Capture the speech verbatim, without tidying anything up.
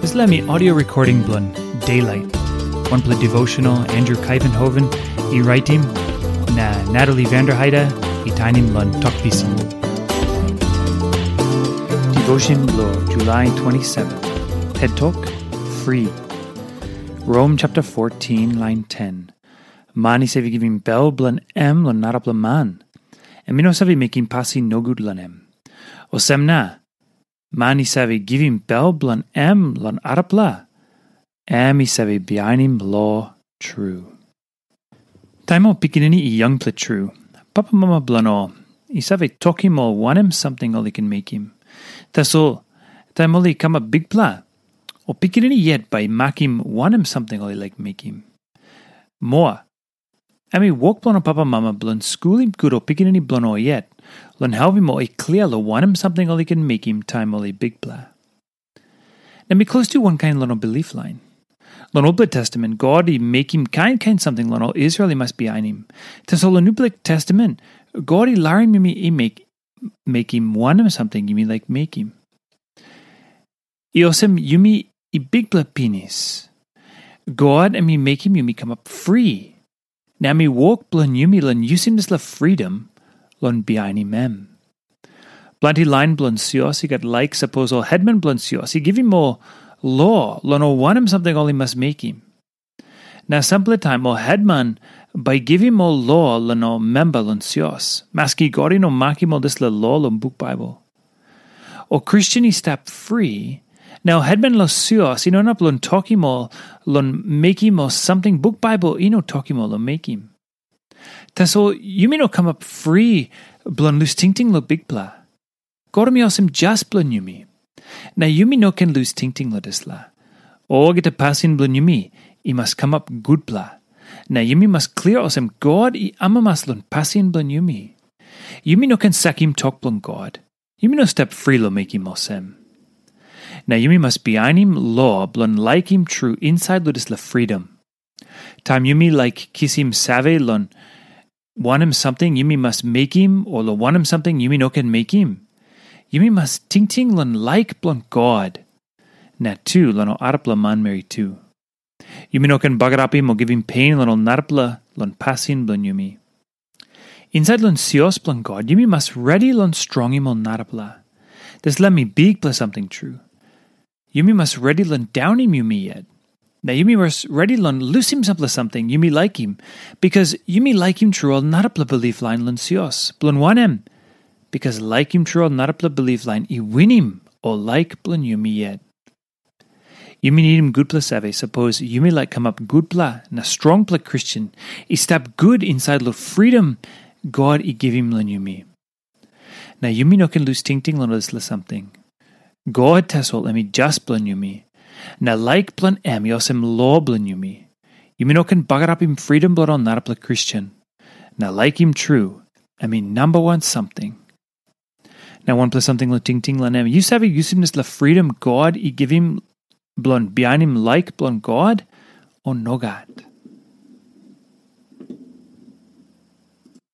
Dispela mi audio recording bilong Daylight, wanpela devotional Andrew Kaivenhoven i raitim, na Natalie Vanderheide i tainim long Tok Pisin. Devotion bilong July twenty-seven. Het Tok, Free. Rom chapter fourteen, line ten. Man i save givim bel bilong em long narapela man, em i no save mekim pasin nogut long em. Olsem na, man i save givim bel bilong em long arapela, em i save bihainim lo tru. Taim ol pikinini i yangpela tru, papamama bilong ol i save tokim ol wanem samting ol i ken mekim. Tasol taim ol i kamap bikpela, ol pikinini yet bai i makim wanem samting ol i laik mekim. Moa, em i wok bilong ol papamama bilong skulim gut ol pikinini bilong ol yet, long helpim ol i klia long wanem samting ol i ken mekim taim ol i bikpela. Na mi klostu wankain long ol bilip lain. Long Olpela Testamen, God i mekim kain kain samting long ol Israel i mas bihainim. Tasol long Nupela Testamen, God i larim yumi i mek, mekim wanem samting yumi laik mekim. I olsem yumi i bikpela pinis. God em i mekim yumi kamap fri. Na em i wok bilong yumi long yusim dispela fridom long bihainim em. Planti lain bilong sios i gat laik sapos ol hetman bilong sios i givim ol lo long ol wanem samting ol i mas mekim. Na sampela taim ol hetman bai i givim ol lo long ol memba long sios, maski God i no makim ol dispela lo long buk Baibel. Ol Kristen i stap fri, na ol hetman long sios i no inap long tokim ol long mekim ol samting buk Baibel i no tokim ol long mekim. Tasol yumi no kamap fri bilong lus tingting long Bikpela. God em i olsem jas bilong yumi. Na yumi no ken lus tingting long dispela. Olgeta pasin bilong yumi i mas kamap gutpela. Na yumi mas klia olsem God i amamas long pasin bilong yumi. Yumi no ken sakim tok bilong God. Yumi no stap fri long mekim olsem. Na yumi mas bihainim lo bilong laikim tru insait long dispela fridom. Taim yumi laik kisim save long wanem samting yumi mas mekim o long wanem samting yumi no ken mekim, yumi mas tingting long laik bilong God, na tu long ol arapela manmeri tu. Yumi no ken bagarapim o givim pen long ol narapela long pasin bilong yumi. Insait long sios bilong God, yumi mas redi long strongim ol narapela. Dispela mi bikpela samting tru. Yumi mas redi long daunim yumi yet. Na yumi mas redi long lusim sampela samting yumi laikim, bikas yumi laikim tru ol narapela bilip lain long sios. Bilong wanem? Bikas laikim tru ol narapela bilip lain i winim ol laik bilong yumi yet. Yumi nidim gutpela save sapos yumi laik kamap gutpela na strongpela Kristen i stap gut insait long fridom God i givim long yumi. Na yumi no ken lus tingting long dispela samting. God tasol em i jas bilong yumi, na laik bilong em i olsem lo bilong yumi. Yumi no ken bagarapim fridom bilong ol narapela Kristen. Na laikim tru, em i namba wan samting. Na wanpela samting long tingting long em, yu save yusim dispela fridom God i givim bilong bihainim laik bilong God, o nogat?